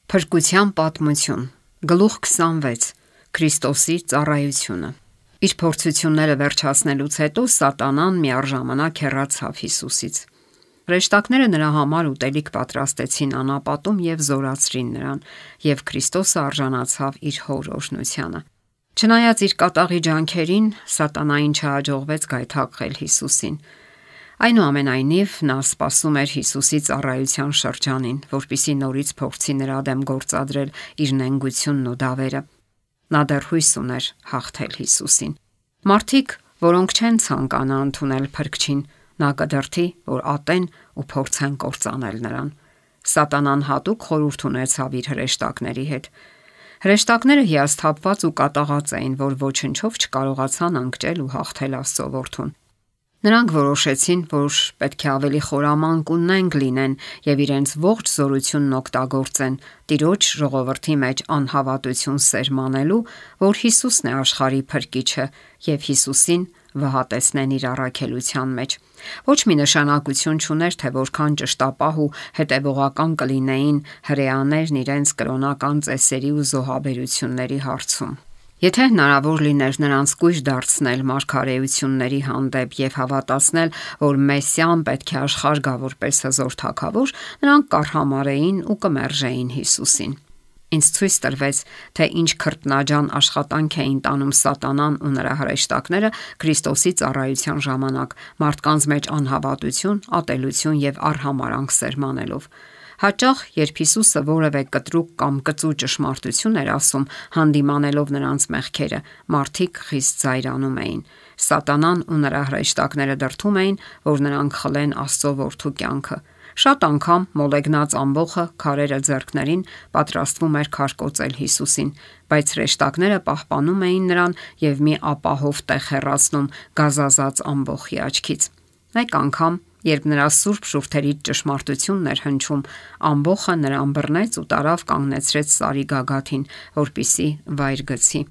Փրկության պատմություն, գլուխ 26, Քրիստոսի ծառայությունը։ Իր փորձությունները վերջացնելուց հետո Սատանան միառժամանակ հեռացավ Հիսուսից։ Հրեշտակները նրա համար ուտելիք պատրաստեցին անապատում եւ զորացրին նրան, եւ Քրիստոսը արժանացավ իր հոր օրհնությանը։ Չնայած իր կատաղի ջանքերին, Սատանային չհաջողվեց գայթակղել Հիսուսին։ Այնուամենայնիվ նա սպասում էր Հիսուսի ծառայության շրջանին, որպեսզի նորից փորձի նրա դեմ գործադրել իր նենգությունն ու դավերը։ Նա դեռ հույս ուներ հաղթել Հիսուսին։ Մարդիկ, որոնք չեն ցանկանա ընդունել Փրկչին, նա կդրթի, որ ատեն ու փորձեն կործանել նրան։ Սատանան հատուկ խորհուրդ ունեցավ իր հրեշտակների հետ։ Հրեշտակները հիասթափված ու կատաղած էին, որ ոչնչով չկարողացան ընկճել ու հաղթել Աստծո որդուն։ Նրանք որոշեցին, որ պետք է ավելի խորամանկ ու նենգ լինեն եւ իրենց ողջ զորությունն օգտագործեն Տիրոջ ժողովրդի մեջ անհավատություն սերմանելու, որ Հիսուսն է աշխարհի Փրկիչը, եւ Հիսուսին վհատեցնեն իր առաքելության մեջ։ Ոչ մի նշանակություն չուներ, թե որքան ճշտապահ ու հետևողական կլինեին հրեաներն իրենց կրոնական ծեսերի ու զոհաբերությունների հարցում։ Եթե հնարավոր լիներ նրանց կույր դարձնել մարգարեությունների հանդեպ եւ հավատացնել, որ Մեսիան պետք է աշխարհ գա որպես հզոր թագավոր, նրանք կառհամարեին ու կմերժեին Հիսուսին։ Ինձ ցույց տրվեց, թե ինչ քրտնաջան աշխատանք էին տանում Սատանան ու նրա հրեշտակները Քրիստոսի ծառայության ժամանակ, մարդկանց մեջ անհավատություն, ատելություն եւ արհամարանք սերմանելով։ Հաճախ, երբ Հիսուսը որևէ կտրուկ կամ կծու ճշմարտություն էր ասում, հանդիմանելով նրանց մեղքերը, մարդիկ խիստ զայրանում էին։ Սատանան ու նրա հրեշտակները դրդում էին, որ նրանք խլեն Աստծո որդու կյանքը։ Շատ անգամ մոլեգնած ամբոխը քարերը ձեռքներին պատրաստվում էր քարկոծել Հիսուսին, բայց հրեշտակները պահպանում էին նրան եւ մի ապահով տեղ հեռացնում գազազած ամբոխի աչքից։ Մեկ անգամ, երբ նրա սուրբ շուրթերից ճշմարտությունն էր հնչում, ամբոխը նրան բռնեց ու տարավ կանգնեցրեց սարի գագաթին, որպիսի վայր գցի։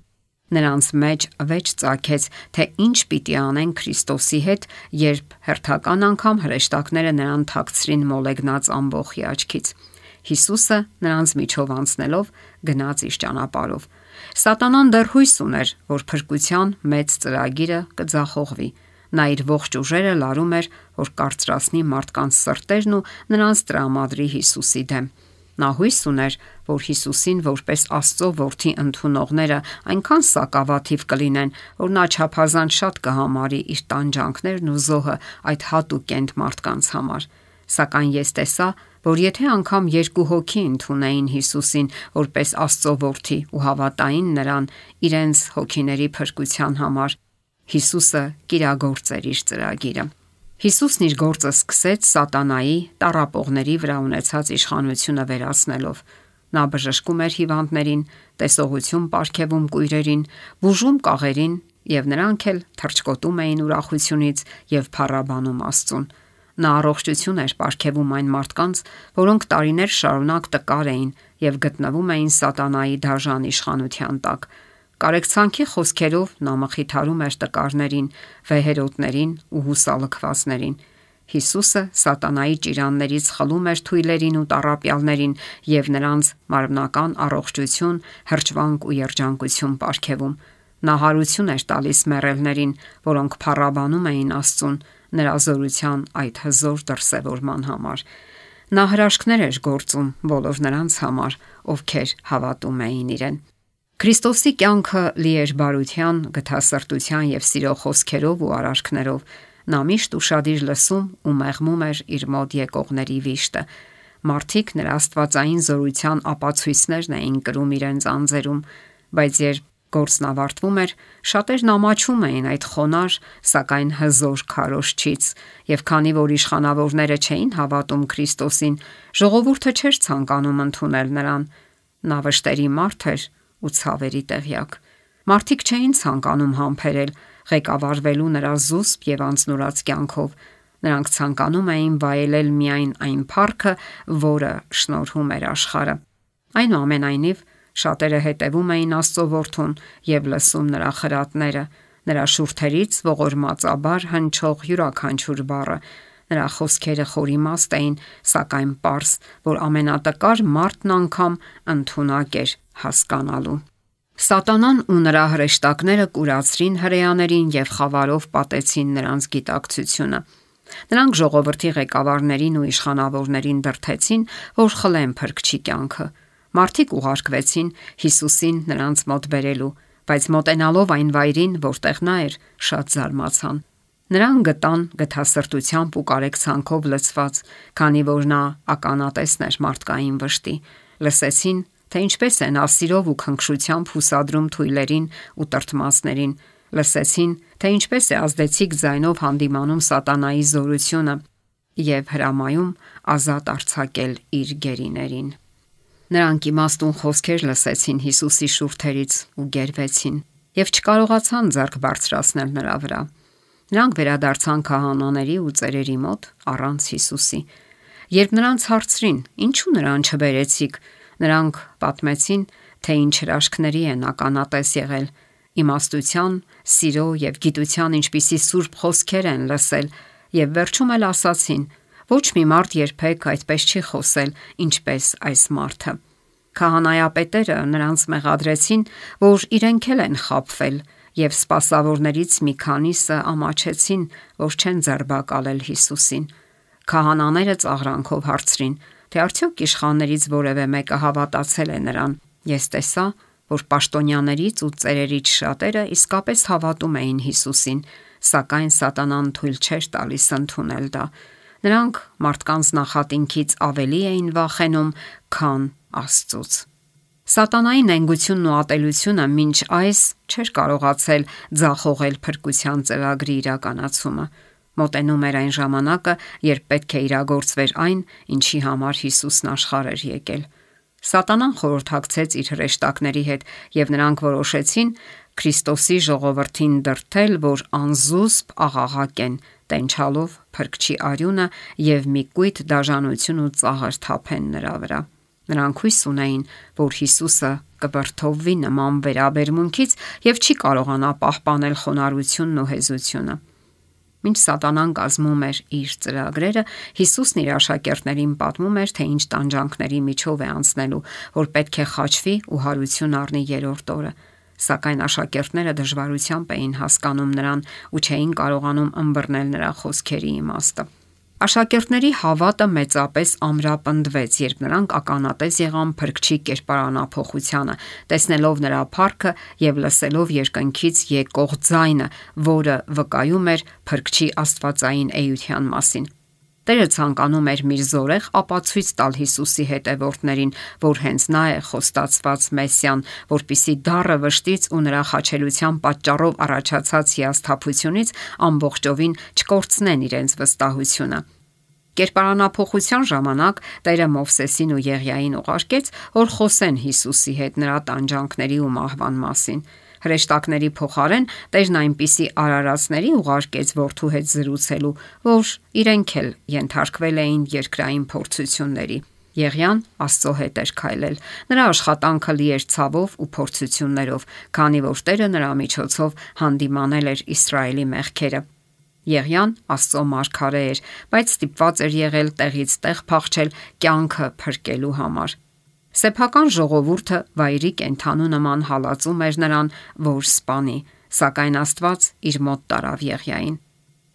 Նրանց մեջ վեճ ծագեց, թե ինչ պիտի անեն Քրիստոսի հետ, երբ հերթական անգամ հրեշտակները նրան թաքցրին մոլեգնած ամբոխի աչքից։ Հիսուսը նրանց միջով անցնելով գնաց իր ճանապարհով։ Սատանան դեռ հույս ուներ, որ փրկության մեծ ծրագիրը կձախողվի։ Նա իր ողջ ուժերը լարում էր, որ կարծրացնի մարդկանց սրտերն ու նրանց տրամադրի Հիսուսի դեմ։ Նա հույս ուներ, որ Հիսուսին որպես Աստծո որդի ընդունողները այնքան սակավաթիվ կլինեն, որ նա չափազանց շատ կհամարի իր տանջանքներն ու զոհը այդ հատուկենտ մարդկանց համար։ Սակայն ես տեսա, որ եթե անգամ երկու հոգի ընդունեին Հիսուսին որպես Աստծո որդի ու հավատային նրան իրենց հոգիների փրկության համար, Հիսուսը կիրագործեր իր ծրագիրը։ Հիսուսն իր գործը սկսեց Սատանայի տառապողների վրա ունեցած իշխանությունը վերացնելով։ Նա բժշկում էր հիվանդներին, տեսողություն պարգևում կույրերին, բուժում կաղերին, եւ նրանք էլ թռչկոտում էին ուրախությունից եւ փառաբանում Աստծուն։ Նա առողջություն էր պարգևում այն մարդկանց, որոնք տարիներ շարունակ տկար էին եւ գտնվում էին Սատանայի դաժան իշխանության տակ։ Կարեկցանքի խոսքերով նա մխիթարում էր տկարներին, վեհերոտներին ու հուսալքվածներին։ Հիսուսը Սատանայի ճիրաններից խլում էր թույլերին ու տառապյալներին եւ նրանց մարմնական առողջություն, հրճվանք ու երջանկություն պարգևում։ Նա հարություն էր տալիս մեռելներին, որոնք փառաբանում էին Աստծուն նրա զորության այդ հզոր դրսևորման համար։ Նա հրաշքներ էր գործում բոլոր նրանց համար, ովքեր հավատում էին իրեն։ Քրիստոսի կյանքը լի էր բարության, գթասրտության եւ սիրո խոսքերով ու արարքներով։ Նա միշտ ուշադիր լսում ու մեղմում էր իր մոտ եկողների վիշտը։ Մարդիկ նրա աստվածային զորության ապացույցներն էին կրում իրենց անձերում, բայց երբ գործն ավարտվում էր, շատերն ամաչում էին այդ խոնար, սակայն հզոր քարոզչից, եւ քանի որ իշխանավորները չէին հավատում Քրիստոսին, ժողովուրդը չէր ցանկանում ընդունել նրան։ Նա վշտերի մարդ էր ու ցավերի տեղյակ։ Մարդիկ չէին ցանկանում համբերել ղեկավարվելու նրա զուսպ եւ անձնուրաց կյանքով։ Նրանք ցանկանում էին վայելել միայն այն փառքը, որը շնորհում էր աշխարհը։ Այնուամենայնիվ, շատերը հետևում էին Աստծո որդուն եւ լսում նրա խրատները, նրա շուրթերից ողորմածաբար հնչող յուրաքանչյուր բառը։ Նրա խոսքերը խորիմաստ էին, սակայն պարզ, որ ամենատկար մարդն անգամ ընդունակ էր հասկանալու։ Սատանան ու նրա հրեշտակները կուրացրին հրեաներին եւ խավարով պատեցին նրանց գիտակցությունը։ Նրանք ժողովրդի ղեկավարներին ու իշխանավորներին դրդեցին, որ խլեն Փրկչի կյանքը։ Մարդիկ ուղարկվեցին Հիսուսին նրանց մոտ բերելու, բայց մոտենալով այն վայրին, որտեղ նա էր, շատ զարմացան։ Նրան գտան գթասրտությամբ ու կարեկցանքով լցված, քանի որ նա ականատեսն էր մարդկային վշտի։ Լսեցին, թե ինչպես է նա սիրով ու քնքշությամբ հուսադրում թույլերին ու տրտմածներին։ Լսեցին, թե ինչպես է ազդեցիկ ձայնով հանդիմանում սատանայի զորությունը եւ հրամայում ազատ արձակել իր գերիներին։ Նրանք իմաստուն խոսքեր լսեցին Հիսուսի շուրթերից ու գերվեցին եւ չկարողացան ձեռք բարձրացնել նրա վրա։ Նրանք վերադարձան քահանաների ու ծերերի մոտ առանց Հիսուսի։ Երբ նրանց հարցրին. «Ինչու նրան չբերեցիք», նրանք պատմեցին, թե ինչ հրաշքների են ականատես եղել, իմաստության, սիրո եւ գիտության ինչպիսի սուրբ խոսքեր են լսել եւ վերջում էլ ասացին. «Ոչ մի մարդ երբեք այդպես չի խոսել, ինչպես այս մարդը»։ Քահանայապետերը նրանց մեղադրեցին, որ իրենք էլ են խաբվել, եւ սպասավորներից մի քանիսը ամաչեցին, որ չեն ձերբակալել Հիսուսին։ Քահանաները ծաղրանքով հարցրին, թե արդյոք իշխաններից որևէ մեկը հավատացել է նրան։ Ես տեսա, որ պաշտոնյաներից ու ծերերից շատերը իսկապես հավատում էին Հիսուսին, սակայն սատանան թույլ չէր տալիս ընդունել դա։ Նրանք մարդկանց նախատինքից ավելի էին վախենում, քան Աստծուց։ Սատանայի նենգությունն ու ատելությունը մինչ այս չէր կարողացել ձախողել փրկության ծրագրի իրականացումը։ Մոտենում էր այն ժամանակը, երբ պետք է իրագործվեր այն, ինչի համար Հիսուսն աշխարհ էր եկել։ Սատանան խորհրդակցեց իր հրեշտակների հետ, եւ նրանք որոշեցին Քրիստոսի ժողովրդին դրդել, որ անզուսպ աղաղակեն, տենչալով Փրկչի արյունը եւ մի կույտ դաժանություն ու ծաղր թափեն նրա վրա։ Նրանք հույս ունեին, որ Հիսուսը կվրդովվի նման վերաբերմունքից եւ չի կարողանա պահպանել խոնարհությունն ու հեզությունը։ Մինչ սատանան կազմում էր իր ծրագրերը, Հիսուսն իր աշակերտներին պատմում էր, թե ինչ տանջանքների միջով է անցնելու, որ պետք է խաչվի ու հարություն առնի երրորդ օրը։ Սակայն աշակերտները դժվարությամբ էին հասկանում նրան ու չէին կարողանում ըմբռնել նրա խոսքերի իմաստը։ Աշակերտների հավատը մեծապես ամրապնդվեց, երբ նրանք ականատես եղան Փրկչի կերպարանափոխությանը, տեսնելով նրա փառքը եւ լսելով երկնքից եկող ձայնը, որը վկայում էր Փրկչի աստվածային էության մասին։ Տերը ցանկանում էր մի զորեղ ապացույց տալ Հիսուսի հետևորդներին, որ հենց նա է խոստացված Մեսիան, որպիսի դառը վշտից ու նրա խաչելության պատճառով առաջացած հիասթափությունից ամբողջովին չկորցնեն իրենց վստահությունը։ Կերպարանափոխության ժամանակ Տերը Մովսեսին ու Եղիային ուղարկեց, որ խոսեն Հիսուսի հետ նրա տանջանքների ու մահվան մասին։ Հրեշտակների փոխարեն Տերն այնպիսի արարածների ուղարկեց որդու հետ զրուցելու, որ իրենք էլ ենթարկվել էին երկրային փորձությունների։ Եղիան Աստծո հետ էր քայլել։ Նրա աշխատանքը լի էր ցավով ու փորձություններով, քանի որ Տերը նրա միջոցով հանդիմանել էր Իսրայելի մեղքերը։ Եղիան Աստծո մարգարե էր, բայց ստիպված էր եղել տեղից տեղ փախչել կյանքը փրկելու համար։ Սեփական ժողովուրդը վայրի կենդանու նման հալածում էր նրան, որ սպանի, սակայն Աստված իր մոտ տարավ Եղիային։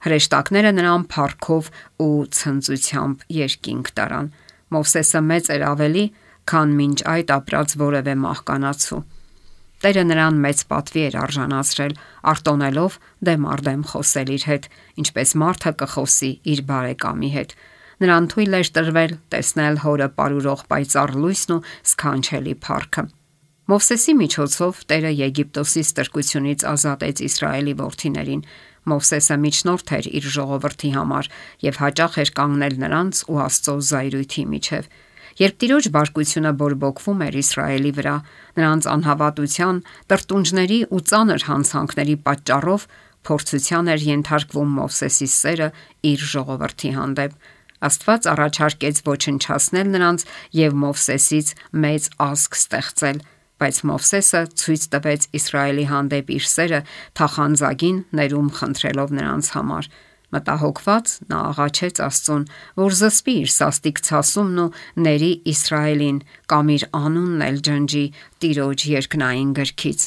Հրեշտակները նրան փառքով ու ցնծությամբ երկինք տարան։ Մովսեսը մեծ էր ավելի, քան մինչ այդ ապրած որևէ մահկանացու։ Տերը նրան մեծ պատվի էր արժանացրել, արտոնելով դեմ առ դեմ խոսել իր հետ, ինչպես մարդը կխոսի իր բարեկամի հետ։ Նրան թույլ էր տրվել տեսնել հորը պարուրող պայծառ լույսն ու սքանչելի փառքը։ Մովսեսի միջոցով Տերը Եգիպտոսի ստրկությունից ազատեց Իսրայելի որդիներին։ Մովսեսը միջնորդ էր իր ժողովրդի համար եւ հաճախ էր կանգնել նրանց ու Աստծո զայրույթի միջև։ Երբ Տիրոջ բարկությունը բորբոքվում էր Իսրայելի վրա, նրանց անհավատության, տրտունջների ու ծանր հանցանքների պատճառով փորձության էր ենթարկվում Մովսեսի սերը իր ժողովրդի հանդեպ։ Աստված առաջարկեց ոչնչացնել նրանց եւ Մովսեսից մեծ ազգ ստեղծել, բայց Մովսեսը ցույց տվեց Իսրայելի հանդեպ իր սերը թախանձագին ներում խնդրելով նրանց համար։ Մտահոգված նա աղաչեց Աստծուն, որ զսպի իր սաստիկ ցասումն ու ների Իսրայելին կամ իր անունն էլ ջնջի Տիրոջ երկնային գրքից։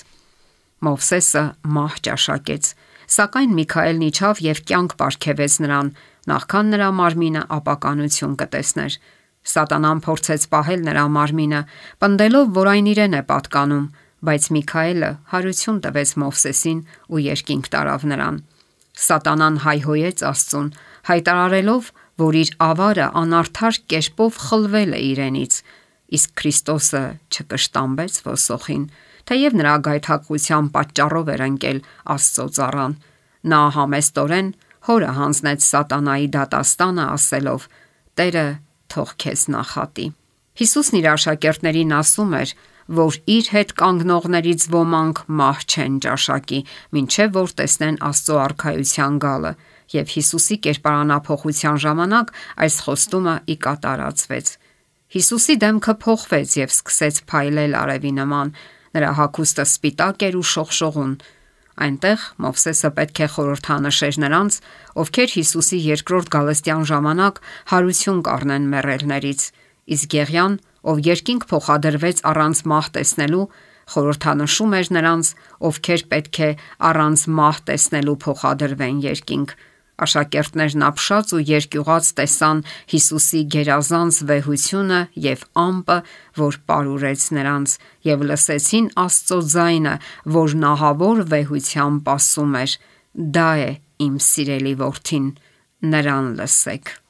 Մովսեսը մահ ճաշակեց, սակայն Միքայելն իջավ եւ կյանք պարգևեց նրան, նախքան նրա մարմինը ապականություն կտեսներ։ Սատանան փորձեց պահել նրա մարմինը, պնդելով, որ այն իրեն է պատկանում, բայց Միքայելը հարություն տվեց Մովսեսին ու երկինք տարավ նրան։ Սատանան հայհոյեց Աստծուն, հայտարարելով, որ իր ավարը անարդար կերպով խլվել է իրենից, իսկ Քրիստոսը չկշտամբեց ոսոխին, թեև նրա գայթակղության պատճառով էր ընկել Աստծո ծառան։ Նա համեստորեն հորը հանձնեց սատանայի դատաստանը, ասելով. «Տերը թող քեզ նախատի»։ Հիսուսն իր աշակերտներին ասում էր, որ իր հետ կանգնողներից ոմանք մահ չեն ճաշակի, մինչև որ տեսնեն Աստծո արքայության գալը, եւ Հիսուսի կերպարանափոխության ժամանակ այս խոստումը ի կատարածվեց։ Հիսուսի դեմքը փոխվեց եւ սկսեց փայլել արևի նման, նրա հագուստը սպիտակ էր ու շողշողուն։ Այնտեղ Մովսեսը պետք է խորհրդանշեր նրանց, ովքեր Հիսուսի երկրորդ գալստյան ժամանակ հարություն կառնեն մեռելներից, իսկ Գեղյան, ով երկինք փոխադրվեց առանց մահ տեսնելու, խորհրդանշում էր նրանց, ովքեր պետք է առանց մահ տեսնելու փոխադրվեն երկինք։ Աշակերտներն ապշած ու երկյուղած տեսան Հիսուսի գերազանց վեհությունը եւ ամպը, որ պարուրեց նրանց, եւ լսեցին Աստծո ձայնը, որ նահավոր վեհությամբ ասում էր. «Դա է իմ սիրելի որդին, նրան լսեք»։